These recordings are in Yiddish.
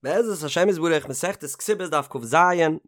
בעזרת השם יתברך מסכת כתובות דף כז,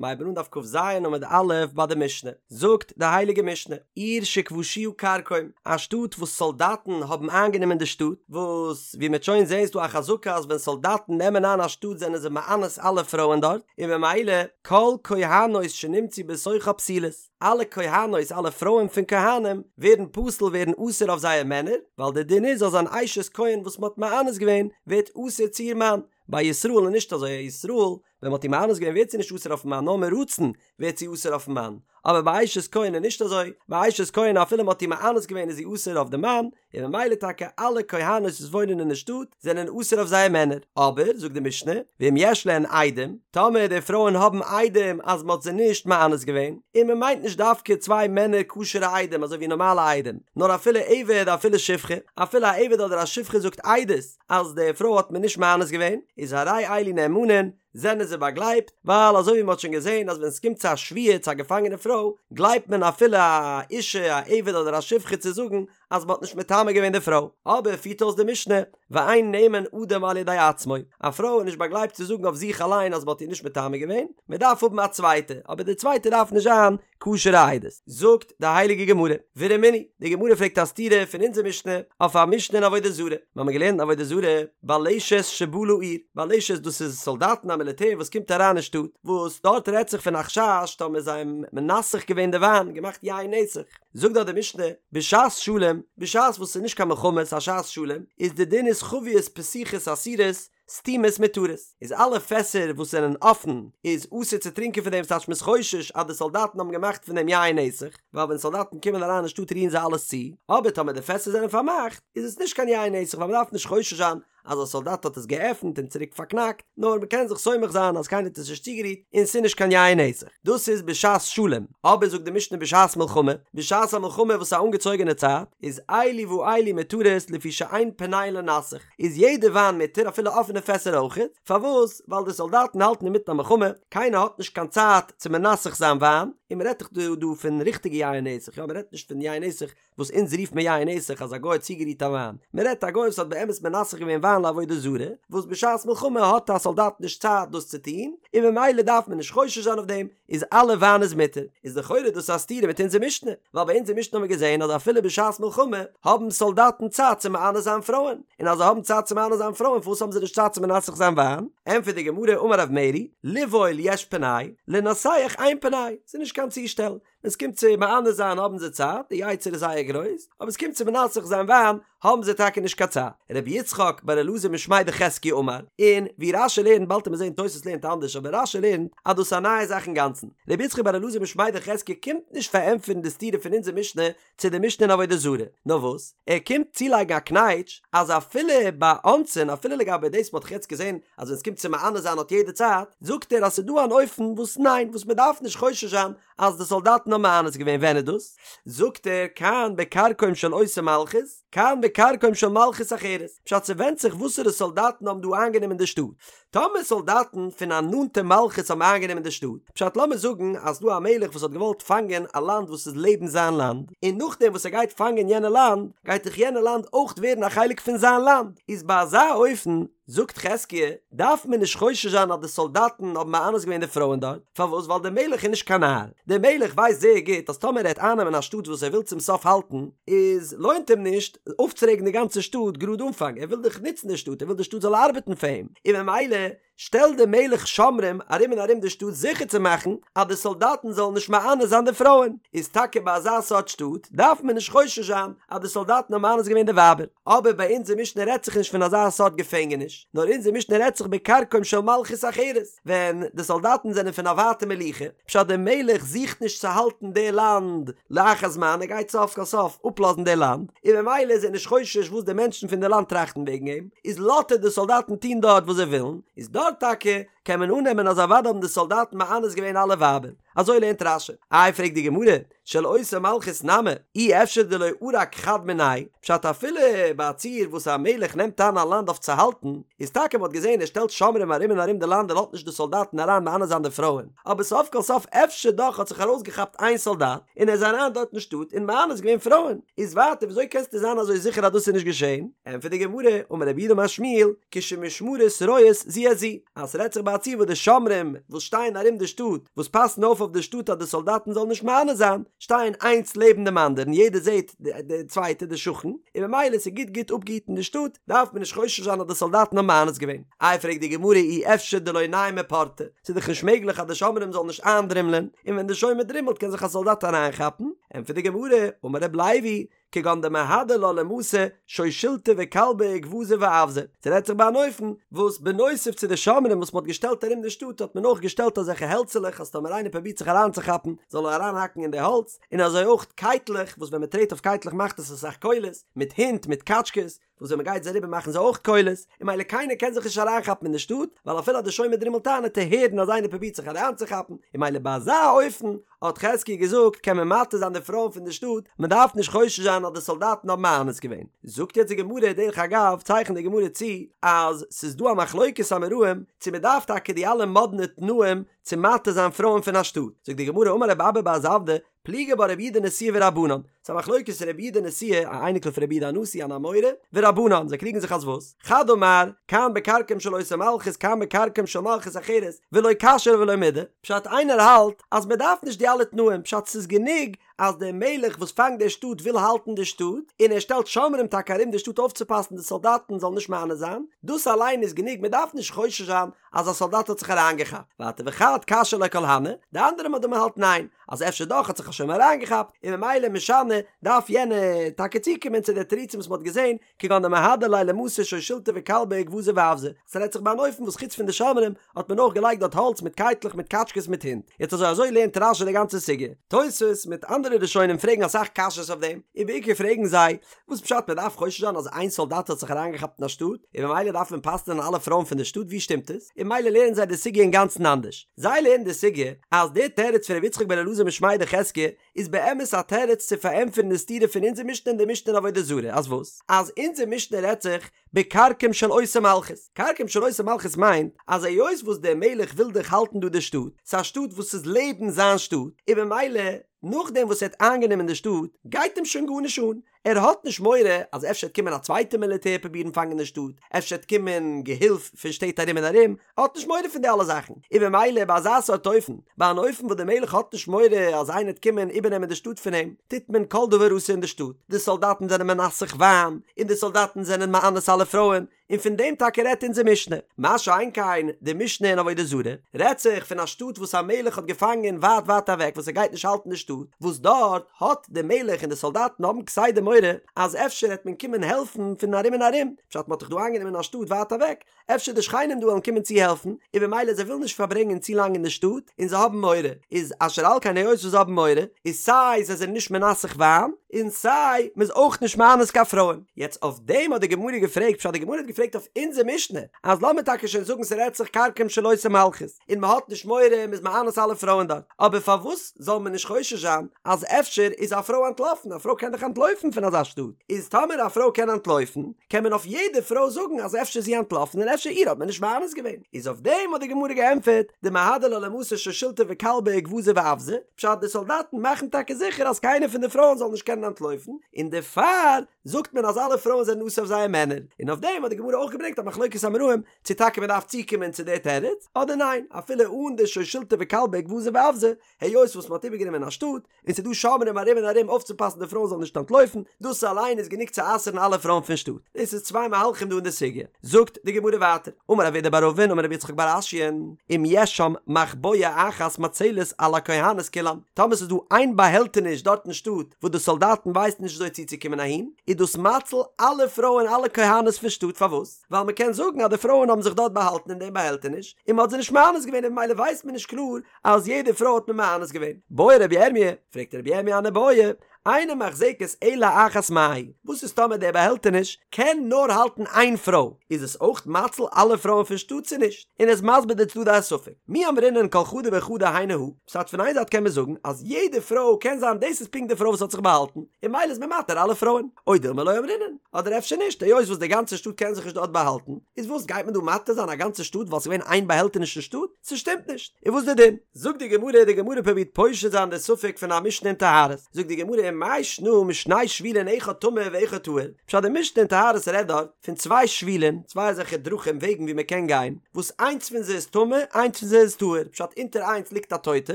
מ'הייבן אן דף כז עמוד א' ביי די משנה, זאגט די הייליגע משנה, עיר שכבשוה כרכום, א שטאט וואס סאלדאטן האבן איינגענומען די שטאט, וואס ווי מ'עט שוין זעהן איז דא א חזקה אז ווען סאלדאטן נעמען איין א שטאט זענען זיי מאנס אלע פרויען דארט, און ממילא כל כהנות שנמצאו בתוכה פסולות, אלע כהנות אלע פרויען פון כהנים ווערן פסול ווערן אסור אויף זייער מענער, ווייל די דין איז אז אן אשת כהן וואס מ'האט מאנס געווען ווערט אסור צו איר מאן, ביי ישראל איז נישט אזוי, א ישראל ווען מ'האט איר מאנס געווען ווערט זי נישט אסור אויפן מאן נאר מרצון ווערט זי אסור אויפן מאן, אבער ביי אשת כהן איז נישט אזוי, ביי אשת כהן אפילו מ'האט איר מאנס געווען איז זי אסור אויף די מאן, און ממילא טאקע אלע כהנות וואס וואוינען אין די שטאט זענען אסור אויף זייער מענער, אבער זאגט די משנה, ואם יש להן עדים, טאמער די פרויען האבן עדים אז מ'האט זיי נישט מאנס געווען, און מ'מיינט נישט דווקא צוויי מענער כשר'ע עדים אזוי ווי נארמאלע עדים, נאר אפילו עבד אפילו שפחה, אפילו א עבד אדער א שפחה זאגט עדות אז די פרוי האט מען נישט מאנס געווען, איז הרי אלו נאמנין, זענען זיי באגלייבט, ווייל אזוי ווי מען האט שוין געזען אז ווען עס קומט צו א שבויה צו א געפאנגענע פרוי, גלייבט מען אפילו א אישה א עבד אדער א שפחה צו זאגן אז מען האט נישט מטמא געווען די פרוי. אבער פירט אויס די משנה, ואין נאמן אדם על ידי עצמו, א פרוי איז נישט באגלייבט צו זאגן אויף זיך אליין אז מען האט איר נישט מטמא געווען, מען דארף האבן א צווייטע, אבער די צווייטע דארף נישט זיין כשר'ע עדות. זאגט די הייליגע גמרא, ורמינהי, די גמרא פרעגט א סתירה פון אונזער משנה אויף א משנה אין עבודה זרה, מיר האבן געלערנט אין עבודה זרה, בלשת שבאה לעיר, בלשת דאס איז סאלדאטן א מיליטער וואס קומט אריין אין שטאט, וואס דארט רעדט זיך פון א חשש טאמער זיי האבן מנסך געווען די וויין, געמאכט יין נסך, זאגט דארט די משנה, בשעת שלום, בשעת וואס ס'איז נישט קיין מלחמה ס'איז א שעת שלום, איז די דין איז חביות פתוחות אסורות, סתומות מותרות, איז אלע פעסער וואס זענען אפן איז אסור צו טרינקען פון דעם ס'טייטש מ'איז חושש אז די סאלדאטן האבן געמאכט פון דעם יין נסך, ווייל ווען סאלדאטן קומען אריין אין שטאט רירן זיי אלעס צו, אבער טאמער די פעסער זענען פארמאכט איז עס נישט קיין יין נסך ווייל מ'דארף נישט חושש זיין אז א סאלדאט האט עס געעפנט און צוריק פארקנאקט, נאר מ'קען זיך סומך זיין אז קיינער האט עס נישט צוגערירט און ס'איז נישט קיין יין נסך. דאס איז בשעת שלום, אבער זאגט די משנה בשעת מלחמה, בשעת א מלחמה וואס איז א אנגעצויגענע צייט, איז אלו ואלו מותרות לפי שאין פנאי לנסך, איז יעדע וויין מותר אפילו אפענע פעסער אויכעט, פארוואס? ווייל די סאלדאטן האלטן אינמיטן א מלחמה, קיינער האט נישט קיין צייט צו מנסך זיין וויין, און מען רעדט דאך דא דא פון ריכטיגע יין נסך, יא מען רעדט נישט פון יין נסך וואס אונז רופט מען יין נסך אז א גוי האט צוגערירט א וויין, מען רעדט א גוי וואס האט באמת מנסך געווען וויין לעבודה זרה, וואס בשעת מלחמה האט א סאלדאט נישט צייט דאס צו טון, און ממילא דארף מען נישט חושש זיין אויף דעם, איז אלע וויין איז מותר, איז לכאורה דאס א סתירה מיט אונזער משנה, ווייל ביי אונזער משנה האבן מיר געזען אז אפילו בשעת מלחמה האבן סאלדאטן צייט צו מענה זיין פרויען, און אז זיי האבן צייט צו מענה זיין פרויען פארוואס האבן זיי נישט צייט צו מנסך זיין וויין? ענטפערט די גמרא אמר רב מרי, לבעול יש פנאי, לנסך אין פנאי, ס'איז נישט קיין צושטעל, ווען ס'קומט צו מענה זיין האבן זיי צייט, די יצר איז זייער גרויס, אבער ס'קומט צו מנסך זיין וויין האבן זיי טאקע נישט קיין צייט. רבי יצחק בר אלעזר משמיה דחזקיה אמר, און ווי רש"י לערנט באלד וועט מען זען תוס' לערנט אנדערש אבער רש"י לערנט אז דאס איז א נייע זאך אינגאנצן. רבי יצחק בר אלעזר משמיה דחזקיה קומט נישט פארענטפערן די סתירה פון אונזער משנה צו די משנה אין עבודה זרה, נאר וואס ער קומט צולייגן א קנייטש אז אפילו ביי אונסין אפילו לגבי דאס מ'האט דאך יעצט געזען אז ווען ס'קומט צו מענה זיין האט יעדער צייט, זאגט ער אז ס'איז דא אן אופן וואס ניין וואס מ'דארף נישט חושש זיין אז די סאלדאטן האבן מאנס געווען ווען איז דאס? זאגט ער כאן בכרכום של אותה מלכות כאן בכרכום של מלכות אחרת, פשט ס'ווענדט זיך וואסערע סאלדאטן האבן דא איינגענומען די שטאט, טאמער סאלדאטן פון א נאנטע מלכות האבן איינגענומען די שטאט, פשט לאמיר זאגן אז ס'דא א מלך וואס האט געוואלט פאנגען א לאנד וואס איז לעבן זיין לאנד, און נאכדעם וואס ער גייט פאנגען יענע לאנד גייט דאך יענע לאנד אויך ווערן א חלק פון זיין לאנד, איז ביי אזא אופן זאגט חזקיה, דארף מען נישט חושש זיין אז די סאלדאטן האבן מאנס געווען די פרויען דארט, פארוואס? ווייל דער מלך איז נישט קיין נאר, דער מלך ווייסט זייער גוט אז טאמער ער וועט אייננעמען א שטאט וואס ער וויל צום סוף האלטן, איז לוינט אים נישט אויפצורעגן די גאנצע שטאט גראד אנפאנג, ער וויל דאך נוצן די שטאט, ער וויל די שטאט זאל ארבעטן פאר אים, און ממילא שטעלט דער מלך שומרים ארום און ארום די שטאט זיכער צו מאכן אז די סאלדאטן זאלן נישט מאנס זיין די פרויען, איז טאקע ביי אזא סארט שטאט דארף מען נישט חושש זיין אז די סאלדאטן האבן מאנס געווען די ווייבער. אבער ביי אונזער משנה רעדט זיך נישט פון אזא סארט געפענגעניש, נאר אונזער משנה רעדט זיך בכרכום של מלכות אחרת, ווען די סאלדאטן זענען פון א ווייטע מלוכה, פשט דער מלך זוכט נישט צו האלטן די לאנד לאחר זמן, ער גייט סוף כל סוף אפלאזן די לאנד, און ממילא איז ער נישט חושש וואס די מענטשן פון די לאנד טראכטן וועגן אים, איז לאזט ער די סאלדאטן טון דארט וואס זיי ווילן, איז דארט טאקע. קען מען אננעמען אז אוודאי האבן די סאלדאטן מאנס געווען אלע ווייבער. אזוי לערנט רש"י. איי פרעגט די גמרא, של אותה מלכות נמי, אי אפשר דלא ערק חד מינייהו, פשט אפילו ביי א ציור וואס א מלך נעמט איין א לאנד אויף צו האלטן, איז טאקע מ'האט געזען ער שטעלט שומרים ארום און ארום די לאנד און לאזט נישט די סאלדאטן אריין מאנס זיין די פרויען, אבער סוף כל סוף אפשר דאך האט זיך ארויסגעכאפט איין סאלדאט און ער איז אריין דארט אין שטאט און מאנס געווען פרויען, איז ווייטער וויאזוי קענסטו זיין אזוי זיכער אז דאס איז נישט געשען? ענטפערט די גמרא, אמר רב יהודה אמר שמואל, כשמשמרות רואות זו את זו, אז ס'רעדט זיך ביי א ציור וואס די שומרים וואס שטייען ארום די שטאט, וואס פאסן אויף אויף די שטאט אז די סאלדאטן זאלן נישט מאנס זיין, שטייען איינס לעבן דעם אנדערן, יעדער זעט די צווייטע, די שכן, און ממילא ס'איז גוט גוט אפגעהיטן די שטאט, דארף מען נישט חושש זיין אז די סאלדאטן האבן מאנס געווען. איי פרעגט די גמרא אי אפשר דלא ניימי פורתא, ס'איז דאך נישט מעגליך אז די שומרים זאלן נישט איינדרימלען, און ווען די שומר דרימלט קען זיך א סאלדאט אריינכאפן, ענטפערט די גמרא, אמר רב לוי, כגון דמהדר לה למתא שושילתא וכלבא וגווזא ואווזא, ס'רעדט זיך ביי אן אופן וואס בנוסף צו די שומרים וואס מ'האט געשטעלט ארום די שטאט האט מען אויך געשטעלט אזעלכע העלצעלעך אז טאמער איינער פרובירט זיך אריינצוכאפן זאל ער אריינהאקן אין די האלץ, און אזוי אויך קייטלעך וואס ווען מ'טרעט אויף קייטלעך מאכט עס אסאך קולות, מיט הינט מיט קאטשקעס, וואס ווען מ'גייט זיי אריבער מאכן זיי אויך קולות, און ממילא קיינער קען זיך נישט אריינכאפן אין די שטאט, ווייל אפילו אז די שומר דרימלט איין וועט ער הערן אז איינער פרובירט זיך אריינצוכאפן, און ממילא ביי אזא אופן האט חזקיה געזאגט קען מען מתיר זיין די פרויען פון די שטאט, מען דארף נישט חושש זיין אז די סאלדאטן האבן מאנס געווען. זאגט יעצט די גמרא, דרך אגב צייכנט די גמרא צו אז ס'איז דא א מחלוקת אמוראים צו מען דארף טאקע די אלע מאדנע תנאים צו מתיר זיין פרויען פון א שטאט, זאגט די גמרא אמר רב אבא בר זבדא, פליגי בה רבי יהודה נשיאה ורבנן, ס'איז א מחלוקת רבי יהודה נשיאה, א אייניקל פון רבי יהודה הנשיא אן אמורא, ורבנן, זיי קריגן זיך אז וואס? חד אמר, כאן בכרקום של אותה מלכות כאן בכרקום של מלכות אחרת, ולא קשיא ולא מידי, פשט איינער האלט אז מען דארף נישט די אלע תנאים, פשט ס'איז גענוג אז דער מלך וואס פאנגט די שטאט וויל האלטן די שטאט, און ער שטעלט שומרים טאקע ארום די שטאט אויפצופאסן די סאלדאטן זאלן נישט מאנס זיין, דאס אליין איז גענוג מען דארף נישט חושש זיין אז א סאלדאט האט זיך אריינגעכאפט, ווייטער וחד קשיא ליה כל הני, די אנדערע מאן דאמר האלט ניין, אז אפשר דאך האט זיך א שומר אריינגעכאפט, און ממילא משני דארף יענער טאקע צוקומען צו די תירוצים וואס מען האט געזען, כגון דמהדר ליה למתא שושילתא וכלבא וגווזא ואווזא, ס'רעדט זיך ביי אן אופן וואס חוץ פון די שומרים האט מען אויך געלייגט דארט האלץ מיט קייטלעך מיט קאטשקעס מיט הינט, יעצט אזוי אזוי לערנט רש"י די גאנצע סוגיא, תוספות מיט אנדערע ראשונים פרעגן אסאך קשיות אויף דעם, און בעיקר פרעגן זיי, וואס פשט מען דארף חושש זיין אז איין סאלדאט האט זיך אריינגעכאפט אין א שטאט, און ממילא דארף מען פסל'ען אלע פרויען פון די שטאט, ווי שטימט עס? און ממילא לערנען זיי די סוגיא אינגאנצן אנדערש. זיי לערנען די סוגיא אז דער תירוץ פון רבי יצחק בן אלעזר משמיה דחזקיה איז באמת א תירוץ צו פארענטפערן די סתירה פון אונזער משנה און די משנה אין עבודה זרה, אז וואס? אז אונזער משנה רעדט זיך בכרקום של אותה מלכות. כרקום של אותה מלכות מיינט אז היות וואס דער מלך וויל דאך האלטן דא די שטאט, ס'איז א שטאט וואס איז לעבן זיין שטאט, און ממילא נאכדעם וואס ער האט איינגענומען די שטאט גייט אים שוין גארנישט אן, ער האט נישט מורא אז אפשר וועט קומען א צווייטע מיליטער פרובירן פאנגען די שטאט, אפשר וועט קומען געהילף פון שטעט ארום און ארום, ער האט נישט מורא פון די אלע זאכן, און ממילא ביי אזא סארט אופן, ביי אן אופן וואס דער מלך האט נישט מורא אז איינער וועט קומען איבערנעמען די שטאט פון אים, טוט מען כל דבר אסור אין די שטאט, די סאלדאטן זענען מנסך וויין, און די סאלדאטן זענען מאנס אלע פרויען, און פון דעם טאקע רעדט אונזער משנה. מה שאין כן די משנה אין עבודה זרה, רעדט זיך פון א שטאט וואס א מלך האט געפאנגען ווייט ווייט אוועק וואס ער גייט נישט האלטן די שטאט, וואס דארט האט די מלך און די סאלדאטן האבן כסדר מורא אז אפשר העט מען קומען העלפן פון ארום און ארום, פשט מ'האט דאך דא איינגענומען א שטאט ווייט אוועק, אפשר די שכנים דא וועלן קומען צו העלפן, און במילא זיי ווילן נישט פארברענגען צו לאנג אין די שטאט, און זיי האבן מורא, איז אשר על כן היות וואס זיי האבן מורא, איז סיי זיי זענען נישט מנסך וויין, און סיי מ'איז אויך נישט מאנס קיין פרויען. יעצט אויף דעם האט די גמרא געפרעגט, פשט די גמרא האט געפרעגט אויף אונזער משנה, אז לאמיר טאקע שוין זאגן ס'רעדט זיך כרקום של אותה מלכות, און מ'האט נישט מורא מ'איז מאנס אלע פרויען דארט, אבער פארוואס זאל מען נישט חושש זיין אז אפשר איז א פרוי אנטלאפן, א פרוי קען דאך אנטלויפן פון אזא שטאט, איז טאמער א פרוי קען אנטלויפן, קען מען אויף יעדע פרוי זאגן אז אפשר איז זי אנטלאפן און אפשר איר האט מען נישט מאנס געווען, איז אויף דעם האט די גמרא געענטפערט, דמהדר לה למתא שושילתא וכלבא וגווזא ואווזא, פשט די סאלדאטן מאכן טאקע זיכער אז קיינער פון די פרויען זאל נישט קענען אנטלויפן, און דערפאר זאגט מען אז אלע פרויען זענען אסור אויף זייער מענער, און אויף דעם האט די גמרא אויך געברענגט א מחלוקת אמוראים צו טאקע מען דארף צוקומען צו די תירוץ אדער ניין, אפילו אן די שושילתא וכלבא וגווזא ואווזא, היות וואס מען האט איבערגענומען א שטאט, און ס'איז דא שומרים ארום און ארום אויפצופאסן די פרויען זאלן נישט אנטלויפן, דאס אליין איז גענוג צו אסר'ן אלע פרויען פון שטאט. דאס איז צוויי מהלכים דא אין די סוגיא. זאגט די גמרא ווייטער, אמר רב אידי בר אבין אמר רבי יצחק בר אשיאן, אם יש שם מחבואה אחת מצלת על הכהנות כולן, טאמער ס'איז דא איין באהעלטעניש דארט אין שטאט וואס די סאלדאטן ווייסן נישט וויאזוי צוצוקומען אהין, איז דאס מציל אלע פרויען אלע כהנות פון שטאט, פארוואס? ווייל מ'קען זאגן אז די פרויען האבן זיך דארט באהאלטן אין דעם באהעלטעניש, און מ'האט זיי נישט מאנס געווען און ממילא ווייסט מען נישט קלאר אז יעדע פרוי האט מען מאנס געווען. בעי רבי ירמי', פרעגט רבי ירמי' אן איבעיא, אינה מחזקת אלא אחת מהו, וואס איז טאמער דער באהעלטעניש קען נאר האלטן איין פרוי, איז עס אויך מציל אלע פרויען פון שטאט צו נישט? און ער איז מסביר די צדדי הספק, מי אמרינן כל חדא וחדא היינו הא, פשט פון איין זייט קען מען זאגן אז יעדע פרוי קען זיין דאס איז פונקט די פרוי וואס האט זיך באהאלטן, און ממילא איז מען מתיר אלע פרויען, או דילמא לא אמרינן, אדער אפשר נישט, היות וואס די גאנצע שטאט קען זיך נישט דארט באהאלטן, איז וואס גייט מען דא מתיר זיין א גאנצע שטאט ווייל ס'איז געווען איין באהעלטעניש אין שטאט? ס'שטימט נישט, און וואס די דין? זאגט די גמרא, די גמרא פרובירט פושט זיין די ספק פון א משנה אין טהרות, זאגט די גמרא ומאי שנא משני שבילין אחד טמא ואחד טהור, פשט די משנה אין טהרות רעדט דארט פון צוויי שבילין, צוויי אזעלכע דרכים וועגן ווי מען קען גיין, וואס איינס פון זיי איז טמא איינס פון זיי איז טהור, פשט אונטער איינס ליגט א טויטע,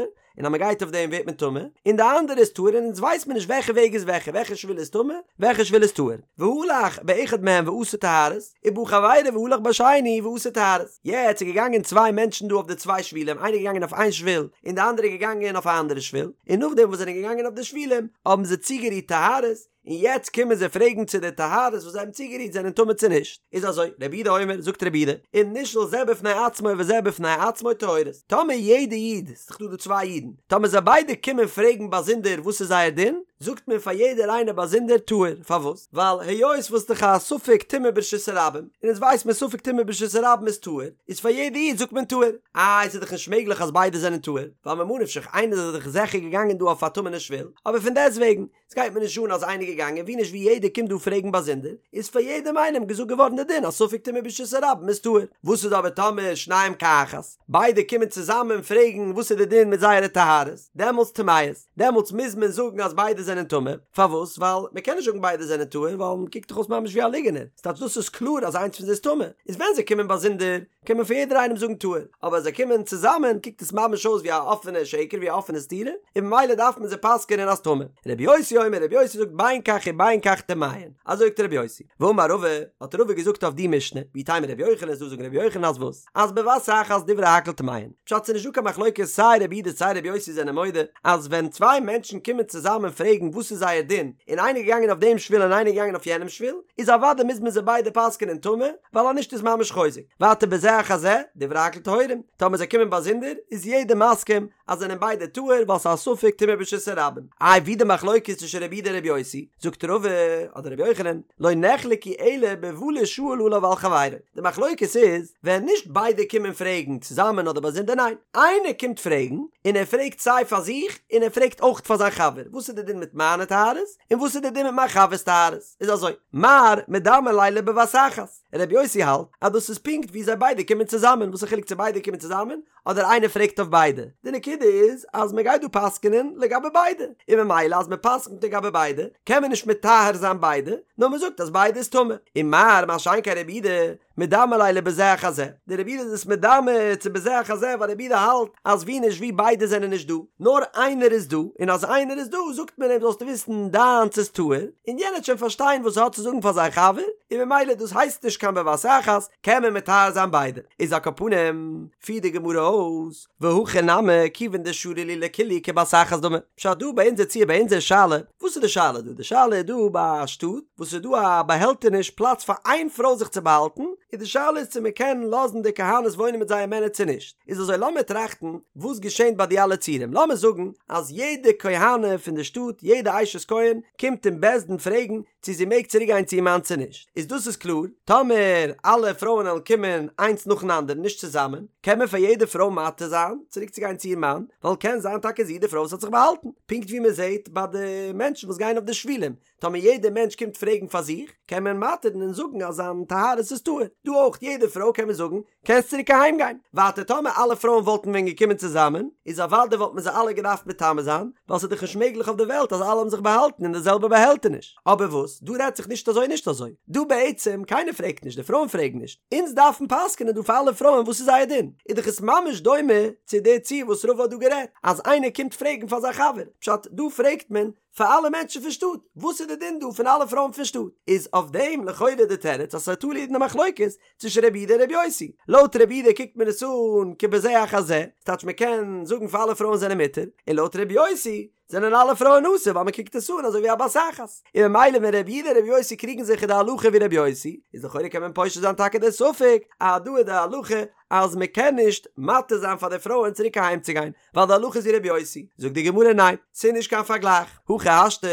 און אז מען גייט אויף דעם ווערט מען טמא, און די אנדערע איז טהור און אונז ווייסט מען נישט וועלכע וועג איז וועלכע, וועלכע שביל איז טמא, וועלכע שביל איז טהור. והלך באחד מהם ועשה טהרות, ובא חברו והלך בשני ועשה טהרות. יעצט איז געגאנגען צוויי מענטשן דא אויף די צוויי שבילים, איינער איז געגאנגען אויף איין שביל און די אנדערע איז געגאנגען אויף א אנדערע שביל, און נאכדעם וואס זיי זענען געגאנגען אויף די שבילים האבן זיי צוגערירט טהרות, און יעצט קומען זיי פרעגן צו די טהרות וואס זיי האבן צוגערירט זענען טמא צו נישט, איז אזוי, רבי יהודה אומר, זאגט רבי יהודה, אם נשאל זה בפני עצמו וזה בפני עצמו טהורות, טאמער יעדע איד, ס'איז דאך דא דא צוויי אידן, טאמער זיי ביידע קומען פרעגן באזונדער וואס איז זייער דין, זאגט מען פאר יעדער איינער באזונדער טהור, פארוואס? ווייל היות וואס דאך א ספק טומאה ברשות הרבים, און אונז ווייסט מען ספק טומאה ברשות הרבים איז טהור, איז פאר יעדע איד זאגט מען טהור. איי ס'איז דאך נישט מעגליך אז ביידע זענען טהור, ווייל ממה נפשך איינער איז דאך זיכער געגאנגען דא אויף א טמא'נע שביל, אבער פון דעסטוועגן, ס'גייט מיר נישט אן אז איינער געגאנגען ווי נישט ווי יעדער קומט דא פרעגן באזונדער, איז פאר יעדעם איינעם געזאגט געווארן די דין אז ספק טומאה ברשות הרבים איז טהור. וואס איז אבער טאמער שניהם כאחת, ביידע קומען צוזאמען פרעגן וואס איז די דין מיט זייערע טהרות, דעמאלטס טמאות, דעמאלטס מוז מען זאגן אז ביידע זענען טמא, פארוואס? ווייל מ'קען נישט זאגן ביידע זענען טהור ווייל מ'קוקט דאך אויס ממש ווי א ליגענער, ס'טייטש דאס איז קלאר אז איינס פון זיי איז טמא, איז ווען זיי קומען באזונדער קען מען פאר יעדער איינעם זאגן טהור, אבער אז זיי קומען צוזאמען קוקט עס ממש אויס ווי א אפענע שקר ווי א אפענע סתירה, און ממילא דארף מען זיי פסק'ענען אז טמא. רבי יוסי אומר, רבי יוסי זאגט בין כך ובין כך טמאין, אזוי זאגט רבי יוסי. ואמר רבא, האט רבא געזאגט אויף די משנה, ואיתימא רבי יוחנן איז דא זאגן רבי יוחנן אז וואס? אז בבת אחת דברי הכל טמאין. פשט ס'איז נישט דא קיין מחלוקת סיי רבי יהודה סיי רבי יוסי זענען מודה אז ווען צוויי מענטשן קומען צוזאמען פרעגן וואס איז זייער דין און איינער איז געגאנגען אויף דעם שביל און איינער איז געגאנגען אויף יענעם שביל, איז אוודאי מוז מען זיי ביידע פסק'ענען טמא, ווייל אז נישט איז ממש חוזק. ווייטער בזה אחר זה, דברי הכל טהורים, טאמער זיי קומען באזונדער, איז יעדער מסכים אז זענען ביידע טהור ווייל ס'איז א ספק טומאה ברשות הרבים. איי ווי די מחלוקת צווישן רבי יהודה און רבי יוסי? זאגט רבא, אדער רבי יוחנן, לא נחלקו אלא בבא לישאל עליו ועל חברו. די מחלוקת איז ווען נישט ביידע קומען פרעגן צוזאמען אדער באזונדער ניין, איינער קומט פרעגן און ער פרעגט סיי פאר זיך און ער פרעגט אויך פאר זיין חבר, וואס איז די דין מיט מיינע טהרות און וואס איז די דין מיט מיין חבר'ס טהרות? איז אזוי, מר מדמי ליה לבבת אחת, רבי יוסי האלט אז דאס איז פונקט ווי זיי ביידע קומען צוזאמען, וואס איז חילוק צו ביידע קומען צוזאמען אדער איינער פרעגט אויף ביידע, די נקודה איז אז מען גייט דא פסק'נען לגבי ביידע, און ממילא אז מען פסק'נט לגבי ביידע קען מען נישט מטהר זיין ביידע, נאר מען זאגט אז ביידע איז טמא, ומר מה שאין כן רבי יהודה מדמי ליה לבזה אחר זה, די רבי יהודה איז עס מדמה צו בזה אחר זה ווייל רבי יהודה האלט אז ווי נישט ווי ביידע זענען נישט דא, נאר איינער איז דא, און אז איינער איז דא זאגט מען אים זאלסטו וויסן דיינס איז טהור, און יענער וועט שוין פארשטיין וואס ער האט צו זאגן פאר זיין חבר, און ממילא דאס הייסט נישט קיין בבת אחת, קען מען מטהר זיין ביידע. איז על כל פנים, פירט די גמרא אויס, והכא נמי, כיוון דשרו להו לכולהו כבת אחת דמי. פשט דא ביי אונזער ציור ביי אונזער שאלה, וואס איז די שאלה דא? די שאלה איז דא ביי א שטאט וואס איז דא א באהעלטעניש פלאץ פאר איין פרוי זיך צו באהאלטן, און די שאלה איז צו מען קען לאזן די כהנות וואוינען מיט זייער מענער צו נישט. איז אזוי לאמיר טראכטן וואס געשענט ביי די אלע ציורים, לאמיר זאגן אז יעדע כהנה פון די שטאט, יעדע אשת כהן, קומט אין בית דין פרעגן צו זי מעג צוריק גיין צו איר מאן צו נישט, איז דאס איז קלאר, טאמער אלע פרויען וועלן קומען איינס נאכן אנדערן נישט צוזאמען, קען מען פאר יעדע פרוי מתיר זיין צוריק צו גיין צו איר מאן, ווייל קען זיין טאקע זי די פרוי וואס האט זיך באהאלטן, פונקט ווי מען זעט ביי די מענטשן וואס גייען אויף די שבילים, טאמער יעדע מענטש קומט פרעגן פאר זיך, קען מען מתיר'ן און זאגן אז זיין טהרות איז טהור, דא אויך יעדע פרוי קען מען זאגן קענסט צוריק אהיים גיין. ווייטער טאמער אלע פרויען וואלטן ווען געקומען צוזאמען, איז אוודאי וואלט מען זיי אלע געדארפט מטמא זיין, ווייל ס'איז דאך נישט מעגליך אויף די וועלט אז אלע האבן זיך באהאלטן אין די זעלבע באהעלטעניש. אבער וואס, דא רעדט זיך נישט אזוי נישט אזוי. דא בעצם, קיינער פרעגט נישט, די פרויען פרעגן נישט. אונז דארפן פסק'נען דא פאר אלע פרויען וואס איז זייער דין. איז דאך עס ממש דומה צו די ציור וואס רבא האט דא גערעדט, אז איינער קומט פרעגן פאר זיין חבר. פשט, דא פרעגט מען פאר אלע מענטשן פון שטאט, וואס איז די דין דא פון אלע פרויען פון שטאט? איז אויף דעם לכאורה די תירוץ אז ס'איז תלוי אין די מחלוקת צווישן רבי יהודה און רבי יוסי. לויט רבי יהודה קוקט מען עס אן כבזה אחר זה, ס'טייטש מען קען זאגן פאר אלע פרויען זענען מותר, און לויט רבי יוסי זענען אלע פרויען אסור ווייל מען קוקט עס אן אזוי ווי א בת אחת. און ממילא ווען רבי יהודה און רבי יוסי קריגן זיך איז די הלכה ווי רבי יוסי, איז לכאורה קען מען פושט זיין טאקע די ספק אז דא איז די הלכה. אז מען קען נישט מתיר זיין פאר די פרויען צוריק אהיים צו גיין, ווייל די הלכה איז ווי רבי יוסי, זאגט די גמרא ניין, ס'איז נישט קיין פארגלייך, הכי השתא,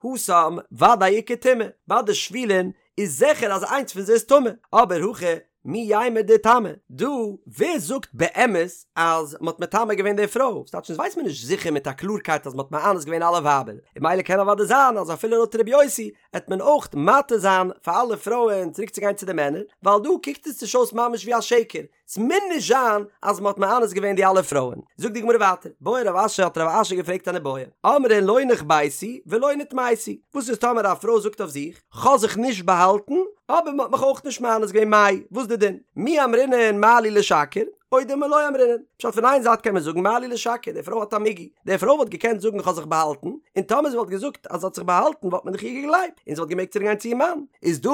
התם ודאי איכא טומאה, ביי די שבולין איז זיכער אז איינס פון זיי איז טמא, אבער הכא מי יימר דאיטמי, דא ווער זאגט באמת אז מ'האט מטמא געווען די פרוי, ס'טייטש אונז ווייסט מען נישט זיכער מיט א קלארקייט אז מ'האט מאנס געווען אלע ווייבער, און ממילא קען אוודאי זיין אז אפילו לויט ר' יוסי עט מען אויך מתיר זיין פאר אלע פרויען צוריק צו גיין צו די מענער, ווייל דא קוקט עס נישט אויס ממש ווי א שקר, ס'מוז נישט זיין אז מ'האט מאנס געווען די אלע פרויען. זאגט די גמרא ווייטער, בעי רב אשי האט רב אשי געפרעגט אן איבעיא, אמרה לא נחבאתי ולא נטמאתי, וואס איז טאמער א פרוי זאגט אויף זיך, כ'האב זיך נישט באהאלטן, אבער מ'האט מיך אויך נישט מאנס געווען מאי, וואס איז די דין? מי אמרינן מה לי לשקר, או דילמא לא אמרינן. פשט פון איין זייט קען מען זאגן מה לי לשקר, די פרוי האט א מיגו, די פרוי וואלט געקענט זאגן כ'האב זיך באהאלטן, און טאמער זי וואלט געזאגט אז זי האט זיך באהאלטן וואלט מען דאך איר געגלייבט, און זי וואלט געמעגט צוריק גיין צו איר מאן. איז דא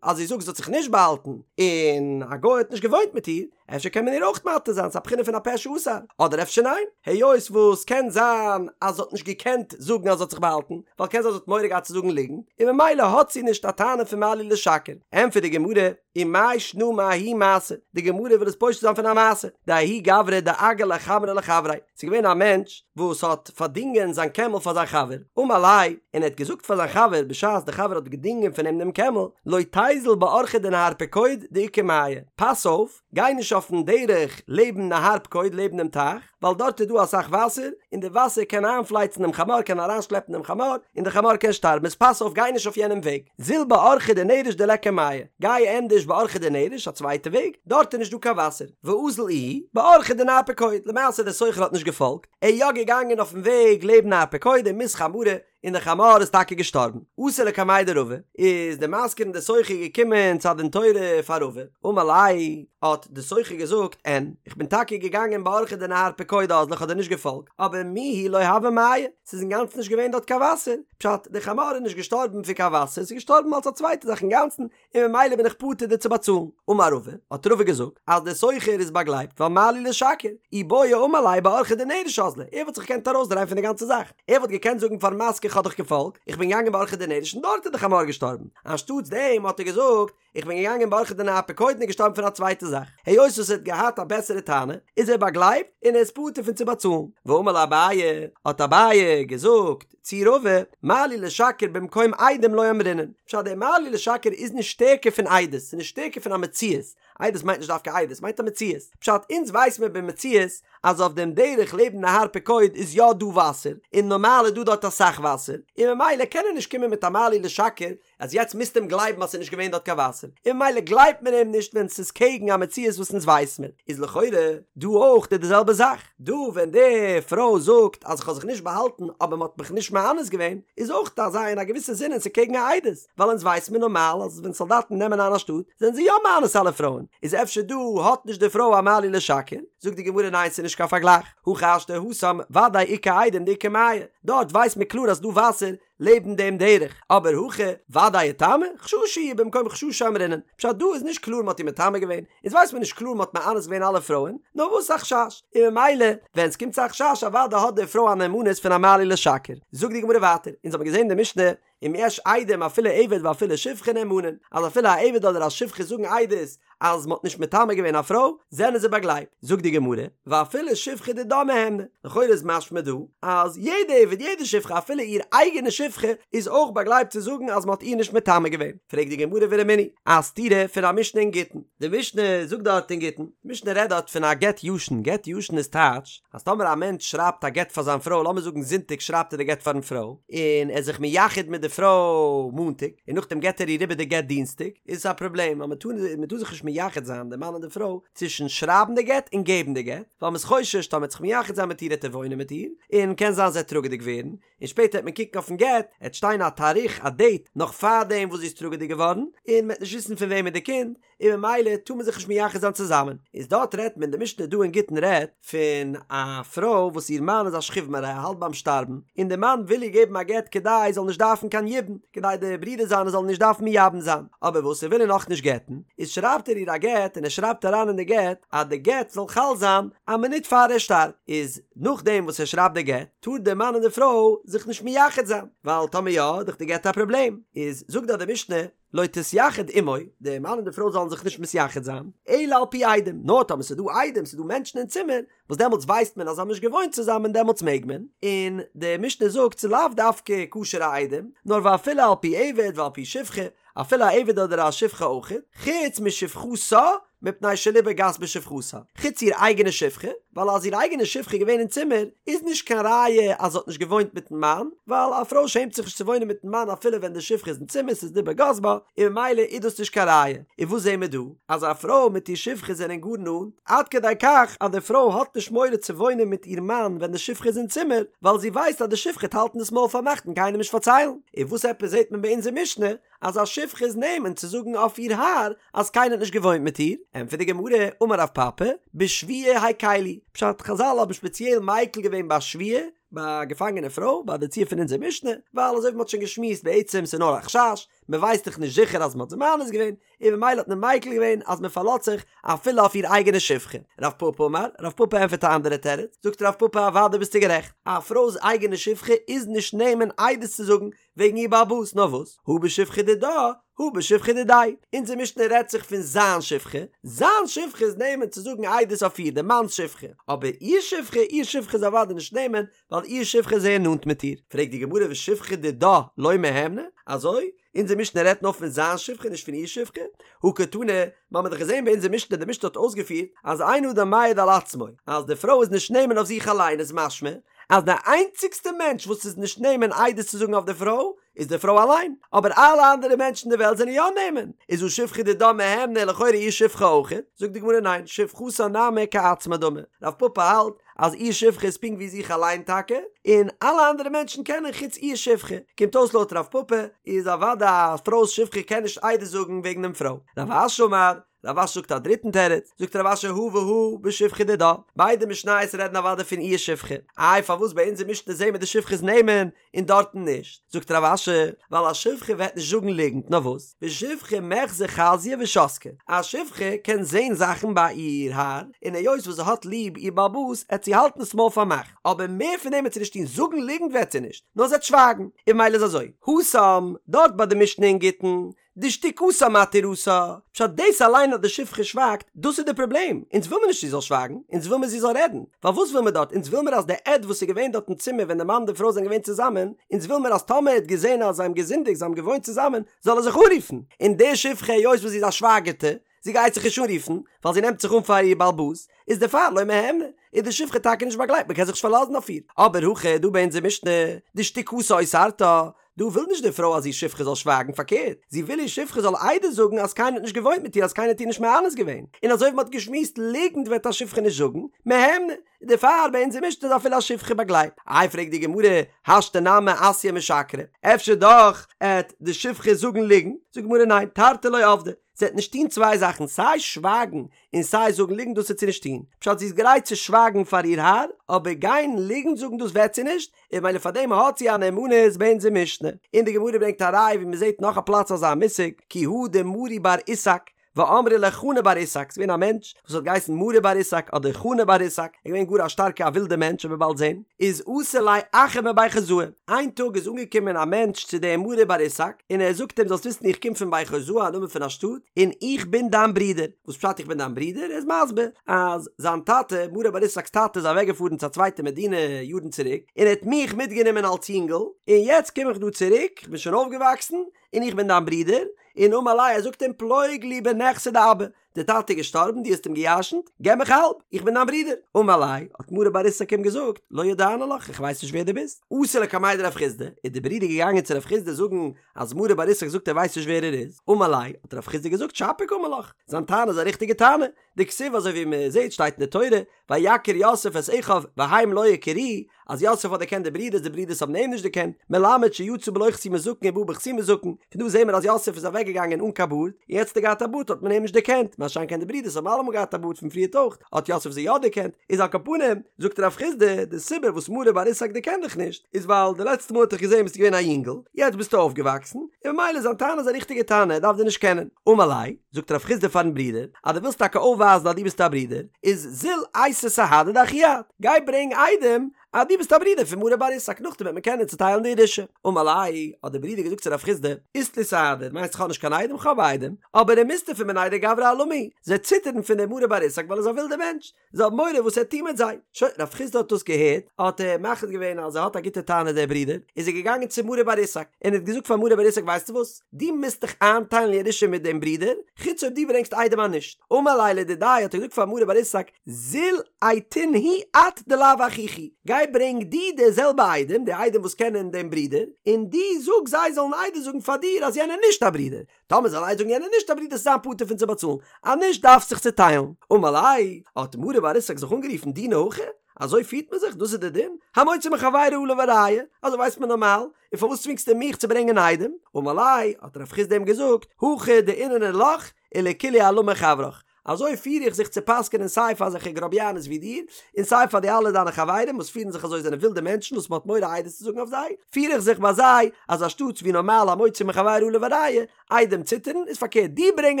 אז זי זאגט זי האט זיך נישט באהאלטן, און א גוי האט נישט געוואוינט מיט איר, אפשר קען מען איר אויך מתיר זיין, ס'איז א בחינה פון א פה שאסר, אדער אפשר ניין, היות וואס קען זיין אז זי האט נישט געקענט זאגן אז זי האט זיך באהאלטן, ווייל קען זיין זי האט מורא געהאט צו זאגן ליגנט, און ממילא האט זי נישט א טענה פון מה לי לשקר. ענטפערט די גמרא, ומאי שנא מההיא מעשה, די גמרא וויל עס פושט זיין פון א מעשה, דההוא גברא דאגר ליה חמרא לחבריה, ס'איז געווען א מענטש וואס האט פארדינגען זיין קעמל פאר זיין חבר, אמר ליה, און ער האט געזאגט פאר זיין חבר בשעת די חבר האט געדינגען פון אים דעם קעמל, לא תיזל באורחא דנהר פקוד דאיכא מיא, פאס אויף, גיי נישט אויפן דרך לעבן נהר פקוד לעבן דעם טייך, ווייל דארט איז דא אסאך וואסער, און די וואסער קען איינפלייצן דעם חמור, קען אריינשלעפן דעם חמור, און דער חמור קען שטארבן, איז פאס אויף גיי נישט אויף יענעם וועג, זיל באורחא דנרש דליכא מיא, גיי ענדערש באורחא דנרש, א צווייטע וועג, דארט איז נישט דא קיין וואסער, ואזל איהו באורחא דנהר פקוד, למעשה דער סוחר האט נישט געפאלגט, ער איז יא געגאנגען אויפן וועג לעבן נהר פקוד ומית חמרא, און דער חמור איז טאקע געשטארבן. אתא לקמיה דרבא, איז דער משכיר און דער סוחר געקומען צו א דין תורה פאר רבא, אמר ליה, האט דער סוחר געזאגט, אין, איך בין טאקע געגאנגען באורחא דנהר פקוד אזלי, איך האב דיר נישט געפאלגט, אבער מיהו לא הוה מיא, ס'איז אינגאנצן נישט געווען דארט קיין וואסער, פשט, דער חמור איז נישט געשטארבן פון קיין וואסער, ס'איז געשטארבן אלס א צווייטע זאך אינגאנצן, און ממילא בין איך פטור דיר צו באצאלן. אמר רבא, האט רבא געזאגט, אז דער סוחר איז באגלייבט ווייל מה לי לשקר, אי בעי אמר ליה באורחא דנרש אזלי, ער וואלט זיך געקענט ארויסדרייען פון די גאנצע זאך, ער וואלט געקענט זאגן פארן משכיר כ'האב דיך געפאלגט, איך בין געגאנגען באורחא דנרש און דארט איז די חמור געשטארבן, אנשטאטס דעם האט ער געזאגט, איך בין געגאנגען באורחא דנהר פקוד און איז געשטארבן פון א צווייטע זאך. היות וואס ער האט געהאט א בעסערע טענה, איז ער באגלייבט און ער איז פטור פון צו באצאלן. ואמר ליה אביי, האט אביי געזאגט צו רבא, מה לי לשקר במקום עדים לא אמרינן. פשט, דער מה לי לשקר איז נישט שטערקער פון עדות, ס'איז נישט שטערקער פון א מציאות. עדות מיינט נישט דווקא עדות, מיינט א מציאות. פשט, אונז ווייס מיר במציאות אז אויף דעם דרך לעבן נהר פקוד איז יא דא וואסער, און נארמאל איז דא דארט אסאך וואסער, און ממילא קען ער נישט קומען מיט א מה לי לשקר אז יעצט מוזטו אים גלייבן אז ס'איז נישט געווען דארט קיין וואסער, און ממילא גלייבט מען אים נישט ווען ס'איז קעגן א מציאות וואס אונז ווייס מיר, איז לכאורה דא אויך די זעלבע זאך, דא ווען די פרוי זאגט אז כ'האב זיך נישט באהאלטן אבער מ'האט מיך נישט מאנס געווען, איז אויך אזא אין א געוויסע זינען ס'איז קעגן א עדות, ווייל אונז ווייס מיר נארמאל אז ווען סאלדאטן נעמען איין א שטאט זענען זיי יא מאנס אלע פרויען, איז אפשר דא האט נישט די פרוי א מה לי לשקר? זאגט די גמרא ניין ס'איז נישט קיין פארגלייך, הכי השתא התם ודאי איכא עדים דאיכא מיא, דארט ווייסט מען קלאר אז ס'דא וואסער, לעבן דעם דרך, אבער הכא ודאי איטמי, חששא הוא במקום חששא אמרינן, פשט דא איז נישט קלאר מ'האט איר מטמא געווען, אונז ווייסט מען נישט קלאר מ'האט מאנס געווען אלע פרויען, נאר וואס א חשש, און ממילא ווען ס'קומט צו א חשש אוודאי האט די פרוי א נאמנות פון א מה לי לשקר. זאגט די גמרא ווייטער, אונז האבן געזען אין די משנה, אם יש עדים אפילו עבד ואפילו שפחה נאמנין, אז אפילו א עבד אדער א שפחה זאגן עדות אז מ'האט נישט מטמא געווען א פרוי, זענען זיי באגלייבט. זאגט די גמרא, ואפילו שפחה דידה מהימנא, לכאורה איז משמע דא, אז יעדע עבד, יעדע שפחה, אפילו איר אייגענע שפחה, איז אויך באגלייבט צו זאגן אז מ'האט איר נישט מטמא געווען. פרעגט די גמרא ורמינהי, א סתירה פון א משנה אין גיטין. די משנה זאגט דארט אין גיטין, די משנה רעדט דארט פון א גט ישן, גט ישן איז טייטש, אז טאמער א מענטש שרייבט א גט פאר זיין פרוי, לאמיר זאגן זונטאג שרייבט ער די גט פארן פרוי, און ער איז זיך מייחד מיט די פרוי מאנטאג, און נאכדעם געט ער איר איבער די גט דינסטאג, איז עס א פראבלעם, ווייל מען טאר מען טאר זיך נישט מייחד זיין די מאן און די פרוי צווישן שרייבן די גט און געבן די גט, ווייל מען איז חושש טאמער ער וועט זיך מייחד זיין מיט איר העט ער וואוינען מיט איר, און קען זיין זי העט טראגעדיג ווערן, און שפעטער העט מען קוקן אויפן גט, העט שטיין א תאריך א דעיט נאך פארדעם וואס זי איז טראגעדיג געווארן, און מען העט נישט וויסן פון וועמען די קינד, און ממילא טאר מען זיך נישט מייחד זיין צוזאמען, איז דארט רעדט מען, די משנה דא אין גיטין רעדט פון א פרוי וואס איר מאן איז א שכיב מרע ער האלט ביים שטארבן, און די מאן וויל איר געבן א גט כדי זי זאל נישט דארפן קיין יבום, כדי די ברידער זיינע זאלן נישט דארפן מייבם זיין, אבער וואס ער וויל איר נאכנישט גט'ן, איז שרייבט ער איר א גט און ער שרייבט אריין אין די גט אז די גט זאל חל זיין א מינוט פאר ער שטארבט, איז נאכדעם וואס ער שרייבט די גט טאר די מאן און די פרוי זיך נישט מייחד זיין, ווייל טאמער יא איז דאך די גט א פראבלעם, איז זאגט דארט די משנה. לא תתייחד עמו, די מאן און די פרוי זאלן זיך נישט מתייחד זיין, אלא על פי עדים, נאר טאמער ס'איז דא עדים, ס'איז דא מענטשן אין צימער, וואס דעמאלטס ווייסט מען אז זיי האבן נישט געוואוינט צוזאמען דעמאלטס מעג מען, און די משנה זאגט ס'איז לאו דווקא כשר'ע עדים, נאר ואפילו על פי עבד ועל פי שפחה, אפילו א עבד אדער א שפחה אויכעט, חוץ משפחתה מפני שליבה גס בשפחתה, חוץ איר אייגענע שפחה, ווייל אז איר אייגענע שפחה איז געווען אין צימער, איז נישט קיין ראיה אז זי האט נישט געוואוינט מיטן מאן, ווייל א פרוי שעמט זיך נישט צו וואוינען מיטן מאן אפילו ווען די שפחה איז אין צימער, ס'איז ליבה גס בה, און ממילא איז דאס נישט קיין ראיה. און וואס זעהן מיר דא? אז א פרוי מיט איר שפחה זענען גאר נאנט, עד כדי כך אז די פרוי האט נישט מורא צו וואוינען מיט איר מאן ווען די שפחה איז אין צימער, ווייל זי ווייסט אז די שפחה וועט האלטן דאס מויל פארמאכט און קיינעם נישט פארציילן. און וואס עפעס זעהט מען ביי אונזער משנה אז א שפחה איז נאמן צו זאגן אויף איר האר אז קיינער האט נישט געוואוינט מיט איר? ענטפערט די גמרא, אמר רב פפא, בשבויה הקילו, פשט, חזל האבן שפעציעל מיקל געווען ביי שבויה, ביי א געפאנגענע פרוי, ביי די ציור פון אונזער משנה, ווייל אזוי ווי מען האט שוין געשמועסט בעצם ס'איז נאר א חשש, מען ווייסט דאך נישט זיכער אז מען האט זי מאנס געווען, און ממילא האט מען מיקל געווען אז מען פארלאזט זיך אפילו אויף איר אייגענע שפחה. רב פפא אמר, רב פפא ענטפערט א אנדערע תירוץ, זאגט רב פפא אוודאי ביסטו גערעכט, א פרוי'ס אייגענע שפחה איז נישט נאמן עדות צו זאגן וועגן איר בעל הבית, נאר וואס, הא בשפחה דידה, הא בשפחה דידיה, אונזער משנה רעדט זיך פון זיין שפחה, זיין שפחה איז נאמן צו זאגן עדות אויף איר, די מאנ'ס שפחה, אבער איר שפחה, איר שפחה איז אוודאי נישט נאמן, ווייל איר שפחה איז זייער נאנט מיט איר. פרעגט די גמרא ושפחה דידה לא מהימנא, אזוי? אונזער משנה רעדט נאר פון זיין שפחה נישט פון איר שפחה? הא קתני, מיר האבן דאך געזען ביי אונזער משנה, די משנה האט אויסגעפירט אז אין אדם מעיד על עצמו, אז די פרוי איז נישט נאמן אויף זיך אליין איז משמע אז די איינציגסטע מענטש וואס איז נישט נאמן עדות צו זאגן אויף די פרוי איז די פרוי אליין, אבער אלע אנדערע מענטשן אין די וועלט זענען יא נאמן, איז הא שפחה דידה מהימנא לכאורה איר שפחה אויכעט, זאגט די גמרא ניין, שפחתה נמי כעצמה דמי, רב פפא האלט אז איר שפחה איז פונקט ווי זיך אליין טאקע, און אלע אנדערע מענטשן קענען חוץ איר שפחה, קומט אויס לויט רב פפא איז אוודאי א פרוי'ס שפחה קען נישט עדות זאגן וועגן דעם פרוי. רב אשי אמר, רב אשי זאגט א דריטן תירוץ, זאגט רב אשי הא והא בשפחה דידה, ביידע משניות רעדן אוודאי פון איר שפחה, איי פארוואס ביי אונזער משנה זעהן מיר די שפחה איז נאמן און דארטן נישט? זאגט רב אשי, ווייל א שפחה וועט נישט זאגן ליגנט, נאר וואס? ושפחה מיחזא חזיא ושתקא, א שפחה קען זעהן זאכן ביי איר האר, און היות וואס זי האט ליב איר בעל הבית עט זי האלטן עס מויל פארמאכט, אבער מער פון דעם וועט זי נישט טון, זאגן ליגנט וועט זי נישט, נאר זי וועט שווייגן, און ממילא איז אזוי, התם, דארט ביי די משנה אין גיטין, דשתיקתה מתירתה, פשט דאס אליין אז די שפחה שווייגט, דאס איז די פראבלעם, אונז וויל מיר נישט זי זאל שווייגן, אונז וויל מיר זי זאל רעדן, ווייל וואס וויל מיר דארט, אונז וויל מיר אז די עד וואס איז געווען דארט אין צימער ווען די מאן און די פרוי זענען געווען צוזאמען, אונז וויל מיר אז טאמער ער האט געזען אז זיי האבן געזינדיגט, זיי האבן געוואוינט צוזאמען, זאל ער זיך אנרופן, און די שפחה היות וואס זי איז א שווייגערטע, זי גייט זיך נישט אנרופן, ווייל זי נעמט זיך אן פאר איר בעל הבית, איז דערפאר לא מהימנא, איז די שפחה טאקע נישט באגלייבט, מען קען זיך נישט פארלאזן אויף איר, אבער הכא דא ביי אונזער משנה, דשתיקתה אוסרתה, דא וויל נישט די פרוי אז איר שפחה זאל שווייגן, פארקערט, זי וויל איר שפחה זאל עדות זאגן אז קיינער האט נישט געוואוינט מיט איר אז קיינער האט איר נישט מאנס געווען, און אזוי ווי מען האט געשמועסט ליגנט וועט א שפחה נישט זאגן, מהימנא, איז דערפאר ביי אונזער משנה איז אפילו א שפחה באגלייבט. איי פרעגט די גמרא, השתא נמי אתיא משקרא, אפשר דאך עט די שפחה זאגן ליגנט, זאגט די גמרא ניין, תרתי לא עבדה, זי וועט נישט טון צוויי זאכן סיי שווייגן און סיי זאגן ליגנט דאס וועט זי נישט טון, פשט זי איז גרייט צו שווייגן פאר איר האר, אבער גיין ליגנט זאגן דאס וועט זי נישט, און ממילא פאר דעם האט זי א נאמנות ביי אונזער משנה. און די גמרא ברענגט א ראיה ווי מען זעט נאך א פלאץ אזא מושג, כי הא דמרי בר איסק, ואמרי לה חנא בר איסק, ס'איז געווען א מענטש וואס האט געהייסן מרי בר איסק אדער חנא בר איסק, ער איז געווען גאר א שטארקע א ווילדע מענטש ווי מ'וועט באלד זען, איז אתא ליה אחא מבי חוזאי, איין טאג איז אנגעקומען א מענטש צו דעם מרי בר איסק, און ער זאגט אים זאלסט וויסן איך קום פון בי חוזאי א נאמען פון א שטאט, און איך בין דיין ברודער, וואס פשט איך בין דיין ברודער? ער איז מסביר אז זיין טאטע, מרי בר איסק'ס טאטע איז אוועק געפארן צו א צווייטע מדינה יארן צוריק, און ער האט מיך מיטגענומען אלס יונגל, און יעצט קום איך דא צוריק, איך בין שוין אויפגעוואקסן, און איך בין דיין ברודער, און אמר ליה ער זאגט אים פלוג לי בנכסי דאבא, דער טאטע איז געשטארבן דו האסט אים געירשנט, געב מיך האלב, איך בין דיין ברודער. אמר ליה, האט מרי בר איסק אים געזאגט, לא ידענא לך, איך ווייס נישט ווער דו ביסט. אתא לקמיה דרב חסדא, איז דער ברודער געגאנגען צו רב חסדא זאגן אז מרי בר איסק זאגט ער ווייסט נישט ווער ער איז. אמר ליה, האט רב חסדא געזאגט, שפיר קאמר לך, זיין טענה איז א ריכטיגע טענה, דכתיב אזוי ווי מען זעט שטייט אין די תורה, ויכר יוסף את אחיו והם לא הכירוהו, אז יוסף האט דערקענט די ברידערס די ברידערס האבן אים נישט דערקענט, מלמד שיצא בלא חתימת זקן ובא בחתימת זקן, פון דא זעהן מיר אז יוסף איז אוועק געגאנגען אן קיין בארד, און יעצט האט ער געהאט א בארד האט מען אים נישט דערקענט, מה שאין כן די ברידערס האבן אלעמאל געהאט א בארד פון פריערט אויך, האט יוסף זיי יא דערקענט, איז על כל פנים, זאגט רב חסדא, די סיבה וואס מרי בר איסק דערקענט דיך נישט, איז ווייל די לעצטע מאל האט דיך געזעהן ביסטו געווען א יונגל, יעצט ביסטו אויפגעוואקסן, און ממילא זיין טענה איז א ריכטיגע טענה, ער דארף דיר נישט קענען. אמר ליה, זאגט רב חסדא פארן ברודער, אז דו ווילסט טאקע אויפווייזן אז דו ביסט א ברודער, איז זיל אייתי סהדי דאחי את, גיי ברענג עדים אז דו ביסט א ברודער פון מרי בר איסק נאכדעם וועט מען קענען צוטיילן די ירושה. אמר ליה, האט דער ברודער געזאגט צו רב חסדא, אית לי סהדי, מיינסט איך האב נישט קיין עדים? כ'האב עדים, אבער דמיסתפי מיניה דגברא אלמא, זיי ציטערן פון דעם מרי בר איסק ווייל ער איז א ווילדער מענטש, זיי האבן מורא וואס ער וועט טון מיט זיי. שוין, רב חסדא האט דאס געהערט, האט ער מחליט געווען אז ער האט א גוטע טענה דער ברודער, איז ער געגאנגען צו מרי בר איסק, און האט געזאגט פאר מרי בר איסק ווייסטו וואס, דו מוזט דיך איינטיילן ירושה מיט דעם ברודער, חוץ אויב דו ברענגסט עדים אז נישט. אמר ליה לדידיה האט ער געזאגט פאר מרי בר איסק, זיל אייתינהו את דלאו אחיך הוא, גיי ברענג דו די זעלבע עדים, די עדים וואס קענען דעם ברודער, און דו זאג זיי זאלן עדות זאגן פאר דיר אז יענער איז נישט א ברודער, טאמער זאל עדות זאגן יענער איז נישט א ברודער וועסט זיין פטור פון צו באצאלן, אז נישט דארפסט זיך צוטיילן. אמר ליה, האט מרי בר איסק זיך אנגערופן דינא הכי, אזוי פירט מען זיך? דאס איז די דין? המוציא מחבירו עליו הראיה, אזוי ווייסט מען נארמאל, און פארוואס צווינגסטו מיך צו ברענגען עדים? אמר ליה, האט רב חסדא אים געזאגט, הכי דאיננא לך ולכולהו עלמא חברך, אזוי פיר איך זיך צו פסק'ענען סיי פאר אזעלכע גראביאנעס ווי דיר, און סיי פאר די אלע דיינע חברים וואס פירן זיך אזוי זענען ווילדע מענטשן וואס מ'האט מורא עדות צו זאגן אויף זיי, פיר איך זיך ביי זיי אז אנשטאטס ווי נארמאל המוציא מחבירו עליו הראיה, עדים ציטערן, איז פארקערט דו ברענג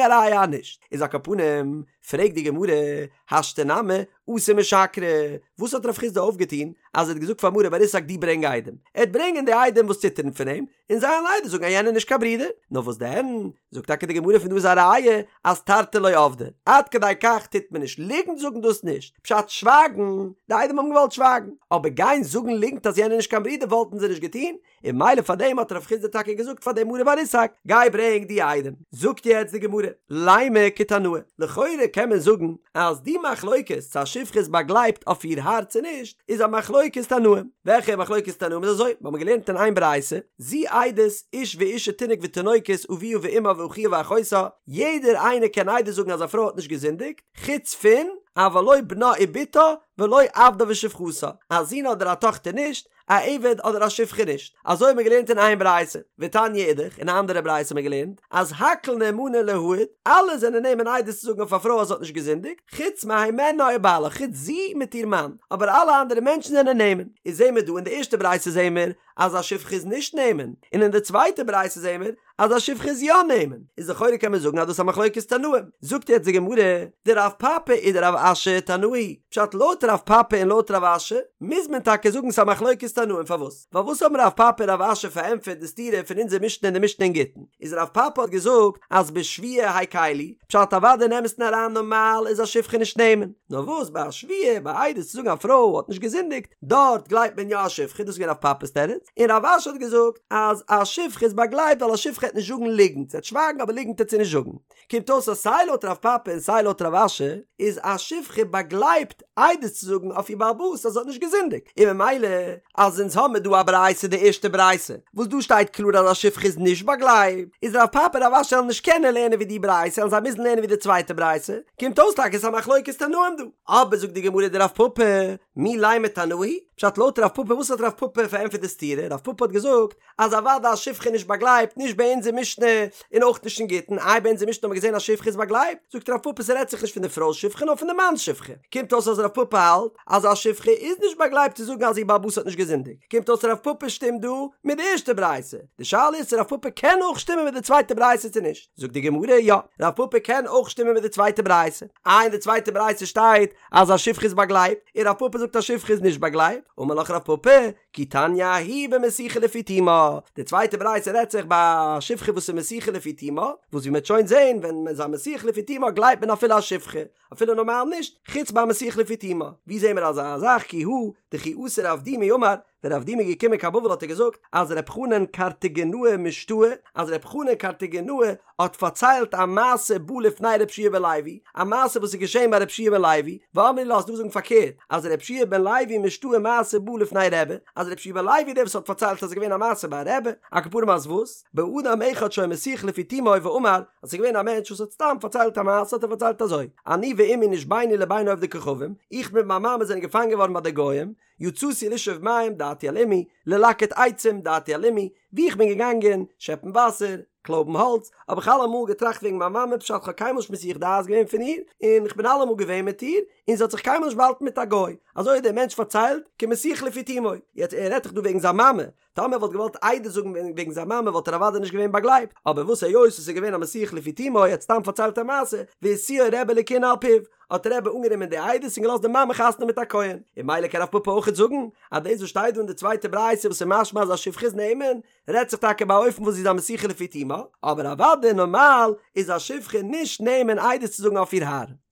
א ראיה אז נישט. איז על כל פנים, פרעגט די גמרא, השתא נמי, אתו משקרי, וואס האט רב חסדא אויפגעטון אז ער האט געזאגט פאר מרי בר איסק דו ברענג עדים? ער וועט ברענגען די עדים וואס ציטערן פון אים, און זיי וועלן עדות זאגן אז יענער איז נישט קיין ברודער, נאר וואס דען? זאגט טאקע די גמרא פון דא איז א ראיה אז תרתי לא עבדי, עד כדי כך טוט מען נישט, ליגנט זאגן דאס נישט, פשט שווייגן, די עדים האבן געוואלט שווייגן, אבער גיין זאגן ליגנט אז יענער איז נישט קיין ברודער וואלטן זיי נישט געטון, און ממילא פאר דעם האט רב חסדא טאקע געזאגט פאר דעם מרי בר איסק, גיי ברענג די עדים. זאגט יעצט די גמרא, לימא כתנאי, לכאורה קען מען זאגן אז די מחלוקת צו א שפחה איז באגלייבט אויף איר האר צו נישט, איז א מחלוקת תנאים. וועלכע מחלוקת תנאים איז אזוי? מיר האבן געלערנט אין איין ברייתא, זו עדות איש ואשה תינוק ותינוקת אביה ואמה ואחיה ואחותה, יעדער איינער קען עדות זאגן אז א פרוי האט נישט געזינדיגט, חוץ פון, אבל לא בנה ובתה ולא עבדה ושפחתה, א זון אדער א טאכטער נישט, א עבד אדער א שפחה נישט, אזוי האט מען געלערנט אין איין ברייתא, ותניא אידך, אין א אנדערע ברייתא האט מען געלערנט, אז הכל נאמנין להעיד, אלע זענען נאמן עדות צו זאגן אויף א פרוי אז זי האט נישט געזינדיגט, חוץ מהימנה ובעלה, חוץ זי מיט איר מאן, אבער אלע אנדערע מענטשן זענען נאמן. איז זעהן מיר דא אין די ערשטע ברייתא זעהן מיר אז א שפחה איז נישט נאמן, און אין די צווייטע ברייתא זעהן מיר אז א שפחה איז יא נאמן, איז לכאורה קען מען זאגן אז דאס איז א מחלוקת תנאים. זאגט יעצט די גמרא, דרב פפא ודרב אשי תנאי, פשט לויט רב פפא און לויט רב אשי מוז מען טאקע זאגן ס'איז א מחלוקת תנאים, פארוואס? ווייל וואס האבן רב פפא און רב אשי פארענטפערט די סתירה פון אונזער משנה און די משנה אין גיטין? איז רב פפא האט געזאגט אז בשבועה הקילו, פשט אוודאי אין אמת'ן אריין נארמאל איז א שפחה נישט נאמן, נאר וואס ביי א שבועה ביי עדות צו זאגן א פרוי האט נישט געזינדיגט, דארט גלייבט מען יא א שפחה, דאס איז געווען רב פפא'ס תירוץ, און רב אשי האט געזאגט אז א שפחה איז באגלייבט ווייל א שפחה העט נישט זאגן ליגנט, זי העט שווייגן אבער ליגנט העט זי נישט זאגן. קומט אויס אז סיי לויט רב פפא און סיי לויט רב אשי איז א שפחה באגלייבט עדות צו זאגן אויף איר בעל הבית אז זי האט נישט געזינדיגט, און ממילא אז אונז האמיר דא א ברייתא די ערשטע ברייתא וואס דא שטייט קלאר אז א שפחה איז נישט באגלייבט, איז רב פפא און רב אשי וועלן נישט קענען לערנען ווי די ברייתא וועלן זיי מוזן לערנען ווי די צווייטע ברייתא, קומט אויס טאקע ס'איז א מחלוקת תנאים דא. אבער זאגט די גמרא דרב פפא, מי לימא תנאי? פשט לויט רב פפא וואס האט רב פפא פארענטפערט די סתירה? רב פפא האט געזאגט אז אוודאי א שפחה איז נישט באגלייבט נישט ביי אונזער משנה און אויך נישט אין גיטין, איי ביי אונזער משנה האט מען געזען אז שפחה איז באגלייבט? זאגט רב פפא ס'רעדט זיך נישט פון די פרוי'ס שפחה נאר פון די מאנ'ס שפחה, קומט אויס אז רב פפא האלט אז א שפחה איז נישט באגלייבט צו זאגן אז איר בעל הבית האט נישט געזינדיגט, קומט אויס רב פפא שטימט דא מיט די ערשטע ברייתא, די שאלה איז צו רב פפא קען אויך שטימען מיט די צווייטע ברייתא צו נישט, זאגט די גמרא יא, רב פפא קען אויך שטימען מיט די צווייטע ברייתא, איי אין די צווייטע ברייתא שטייט אז א שפחה איז באגלייבט, און רב פפא זאגט א שפחה איז נישט באגלייבט, אמר לך רב פפא, כי תניא ההיא במסיחה לפי תומה, די צווייטע ברייתא רעדט זיך ביי א שפחה וואס איז מסיחה לפי תומה, וואס ווי מ'וועט שוין זען ווען מ'איז א מסיח לפי תומה גלייבט מען אפילו א שפחה, אפילו נארמאל נישט, חוץ ביי מסיח לפי תומה, ווי זעהן מיר אזא זאך כי הא דכי אתא רב דימי אמר, ווען רב דימי איז געקומען קיין בבל האט ער געזאגט אז ר' חנן קרטיגנאי משתעי, אז ר' חנן קרטיגנאי האט פארציילט א מעשה בא לפני ר' יהושע בן לוי, א מעשה וואס איז געשען ביי ר' יהושע בן לוי, ואמרי לה ס'איז דא וואס זאגן פארקערט, אז ר' יהושע בן לוי משתעי מעשה בא לפני רבי, אז ר' יהושע בן לוי איז דער וואס האט פארציילט אז עס איז געווען א מעשה ביי רבי, על כל פנים אז וואס? באדם אחד שהיה מסיח לפי תומו ואמר, אז ס'איז געווען א מענטש וואס האט סתם פארציילט א מעשה האט ער פארציילט אזוי, אני ואמי נשבינו לבין עובדי כוכבים, איך מיט מיין מאמע זענען געפאנגען געווארן ביי די גוים, יצאתי לשאוב מים דעתי על אמי, ללקט עצים דעתי על אמי, ווי איך בין געגאנגען שעפן וואסער, קלויבן האלץ, האב איך אלעמאל געטראכט וועגן מיין מאמע פשט כ'האב קיינמאל נישט מסיח דעת געווען פון איר, און כ'בין אלעמאל געווען מיט איר, און זי האט זיך קיינמאל נישט באהאלטן מיט א גוי, אזוי האט דער מענטש פארציילט, כמסיח לפי תומו, יעצט ער רעדט דאך דא וועגן זיין מאמע, טאמער ער וואלט געוואלט עדות זאגן וועגן זיין מאמע וואלט ער אוודאי נישט געווען באגלייבט, אבער וואס היות עס איז געווען א מסיח לפי תומו ער האט סתם פארציילט א מעשה, והשיאו רבי לכהונה על פיו, האט רבי אנגענומען די עדות און געלאזט די מאמע חתונה מיט א כהן, און ממילא קען רב פפא אויכעט זאגן אז דאס וואס שטייט דא אין די צווייטע ברייתא וואס איז משמע אז א שפחה איז נאמן, רעדט זיך טאקע ביי א אופן וואס זי איז א מסיחה לפי תומה, אבער אוודאי נארמאל איז א שפחה נישט נאמן עדות צו זאגן אויף איר האר.